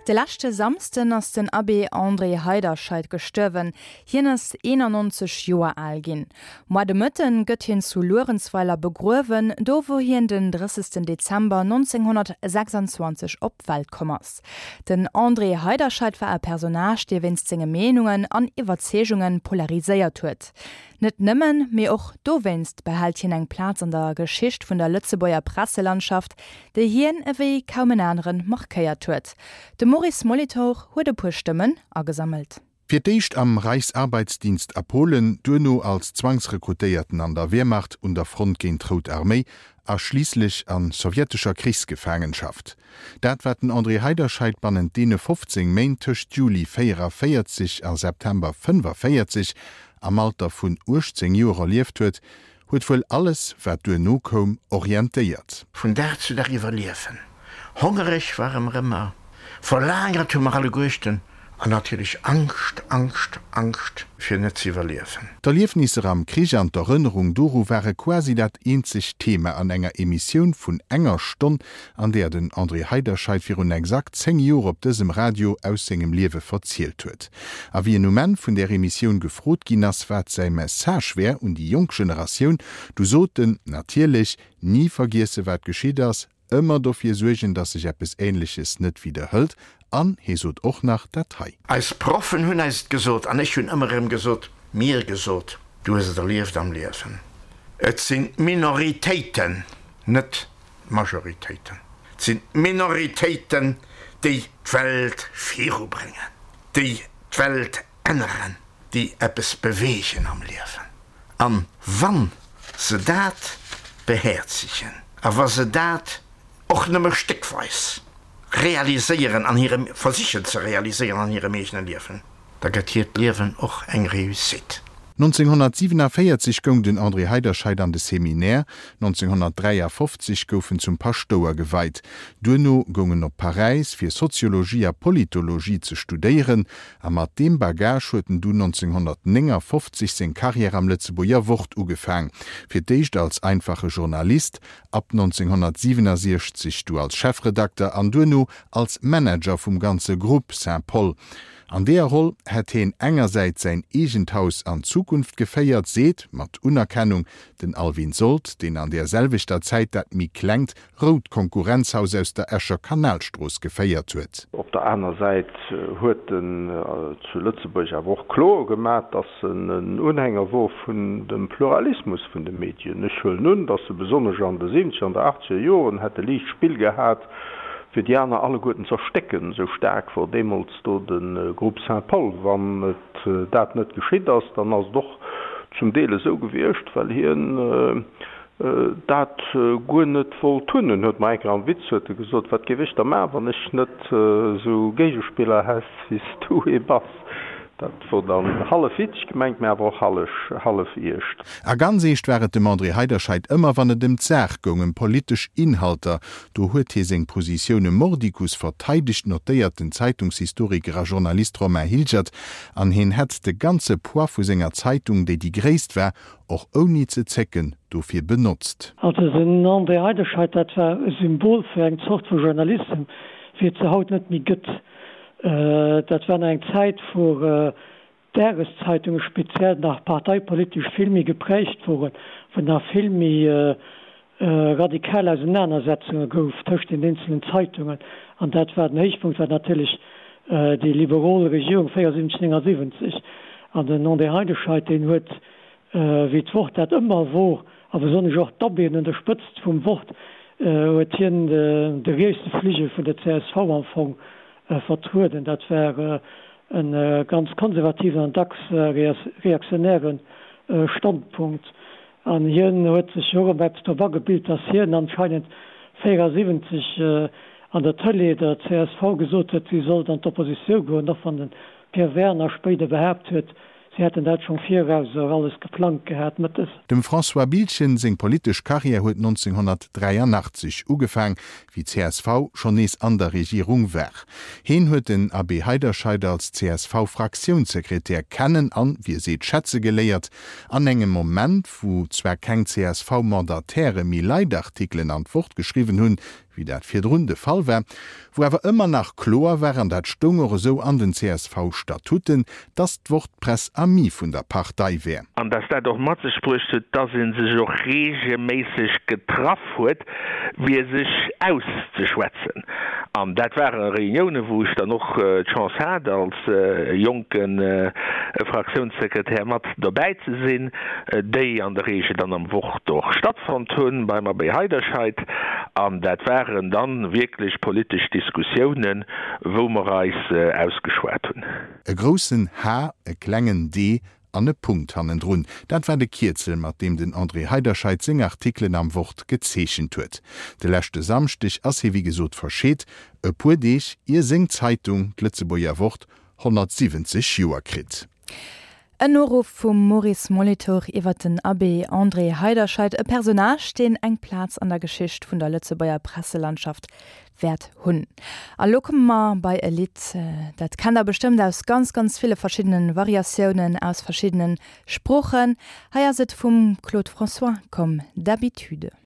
De leschte Samsden ass den Abbé André Heiderscheid gestuerwen. Hien ass 91 Joer al ginn. Moar de Mëtten gëtt hien zu Luerenzweiler begruewen, do wou hien den 30 Dezember 1926 op d'Welt komm ass. Den André Heiderscheid war e Personnage, dee wéinst senge Meenungen an Iwwerzeegunge polariséiert huet. Net nëmmen, mee och dowéinst behält hien eng Plaz an der Geschicht vun der Lëtzebuerger Presselandschaft, déi hien ewéi kaum en aneren markéiert huet. De Maurice Molitor huet e puer Stëmmen agesammelt. Fir d'éischt am Reichsarbeitsdienst a Polen, duerno als Zwangsrekrutéierten an der Wehrmacht un der Front géint d'Rout Arméi a schliisslech a sowjetescher Krichsgefaangenschaft. Dat wat den André Heiderscheid bannent deene 15 Méint tëscht Juli 44 a September 45 am Alter vun 18 Joer erlieft huet, huet wuel alles, wat duerno koum, orientéiert. Vun Dag zu Dag iwwerliewen. Hongereg ware mer ëmmer, verlagert hu mer alleguerten an natierlech Angscht, Angscht, Angscht fir net ze iwwerliewen. D'Erliefnisser am Krich an d'Erënnerung doru ware quasi dat eenzegt Thema an enger Emissioun vun enger Stonn, an där den André Heiderscheid virun exakt 10 Joer op dësem Radio aus sengem Liewe verzielt huet. A wéi en um Enn vun där Emissioun gefrot ginn ass, wat säi Message wär un déi jonk Generatioun, du sot en, Natierlech, ni vergiesse wat geschitt ass, ëmmer dofir suergen, datt sech eppes Änleches net widderhëlt. An hee sot och nach dat hei. Eis Proffen hunn eis et gesot an ech hunn ëmmer erëm gesot, mir gesot, du hues et erlieft am Liewen, et sinn d'Minoritéiten, net d'Majoritéiten. Et sinn d'Minoritéiten, déi d'Welt virubréngen, déi d'Welt änneren, déi eppes beweegen am Liewen. A wa se dat behäerzegen a wa se dat och nëmme stéckweis realiséieren an hirem, versichen ze realiséieren an hirem eegene Liewen, da gëtt hiert Liewen och eng Réussite. 1947 goung den André Heiderscheid an de Seminaire, 1953 gouf en zum Paschtouer geweit. Duerno goung en op Paräis fir Soziologie a Politologie ze studéieren a mat deem Bagage huet en dunn 1959 seng Carrière am Lëtzebuerger Wort ugefaang, fir d'éischt als einfache Journalist, ab 1967 du als Chefredakter an duerno als Manager vum ganze Groupe Saint-Paul. An deeër Roll hätt heen engersäits säin eegent Haus an d'Zukunft geféiert, seet, mat Unerkennung, den Alwin Sold, deen an deer selwechter Zäit dat méi klengt rout Konkurrenzhaus aus der Escher Kanalstrooss geféiert huet. Op der aner Säit huet en zu Lëtzebuerg awer och kloer gemaach, datt en en Unhänger wor vun dem Pluralismus vun de Medien. Ech huelen un, datt e besonnesch an de siwwenzeger an der achtzeger Joren hätt e liicht Spill gehat, fir déi aner alleguerten z'erstécken, esou staark wor deemools do de Groupe Saint-Paul. Wann et dat net geschitt ass, dann ass et och zum Deel esou gewiescht, well hien dat guer net wollt hunn. En huet mer eng Kéier am Witz huet e gesot, Wat géif ech da maachen, wann ech net esou Géigespiller häss, wéi s du ee bass? Dat wor dann hallef witzeg gemengt, mä awer och hallef eescht. A ganz eescht war et dem André Heiderscheid ëmmer, wann et ëm d'Saach goung, ëm politesch Inhalter. Do huet hie seng Positioune mordicus verteidegt, notéiert den Zeitungshistoriker a Journalist Romain Hilgert. An hien hätt de ganze Poids vu senger Zeitung, déi déi gréisst war, och ouni ze zécken, dofir benotzt. Also den André Heiderscheid, dat war e Symbol fir eng Zort vu Journalissem, wéi et se haut net méi gëtt. Dat war nach eng Zäit, wou d'Dageszeitunge speziell nach parteipolitesch vill méi geprägt woren, wou nach vill méi radikal Ausenanersetzunge gouf tëscht den eenzelen Zeitungen. An dat war den Héichpunkt war natierlech déi liberol Regierung 74, 79. An den André Heiderscheid, deen huet, wéi d'Wort dat ëmmer wor, a besonnesch och d'Abbéen un der Spëtzt vum Wort, huet hien de rietse Fligel vun der csv am Fong vertrueden. Dat war e ganz konservativen an dacks reaktionäre Standpunkt. An hien huet sech jo och ëmmer eppes drop agebilt, datt hien anscheinend 74 an der Tëlee der csv gesot huet, si sollt an d'Oppositioun goen, och wann de Pierre Werner spéider behaapt huet, Si hätten dat schonn viraus och alles geplangt gehat mëttes. Dem François Biltgen seng politesch Karriär huet 1983 ugefaang, wéi csv schonn nees an der Regierung war. Heen huet den Abbé Heiderscheid als CSV-Fraktiounssekretär kennen an, wéi e seet, schätze geléiert. An engem Moment, wou zwar keng CSV-Mandataire méi Leitartikelen an d'Wort geschriwwen hunn, wéi dat virdrun de Fall war, wou awer ëmmer nach kloer war, an dat stoung och esou an den CSV-Statuten, dass d'Wort d'Presse amie vun der Partei wär. An dass dat och mat sech bruecht huet, dass ee sech och regelméisseg getraff huet, fir sech auszeschwätzen. An dat ware Reuniounen, wou ech dann och d'Chance hat, als jonke Fraktiounssekretär mat dobäi ze sinn, déi an der Regel dann am Wort och stattfonnt hunn, beim Abbé Heiderscheid. An dat waren dann wierklech politesch Diskussiounen, wou mer eis ausgeschwat hunn. E groussen H, e klengen d an e Punkt hannendrun, dat war de Kierzel, mat deem den André Heiderscheid seng Artikelen am Wort gezeechent huet. De leschte Samschdeg ass hie wéi gesot verscheet, e puer Deeg ier seng Zeitung, d'Lëtzebuerger Wort, 170 Joer kritt. En Noruff vum Maurice Molitor iwwer den Abbé André Heiderscheid, e Personnage, deen eng Plaz an der Geschicht vun der Lëtzebuerger Presselandschaft wäert hunn. A lo komme mer bei e Lidd, dat kennt der bestëmmt aus ganz, ganz ville verschiddene Variatiounen, aus verschiddene Sproochen. Hei ass et vum Claude François, Comme d'habitude.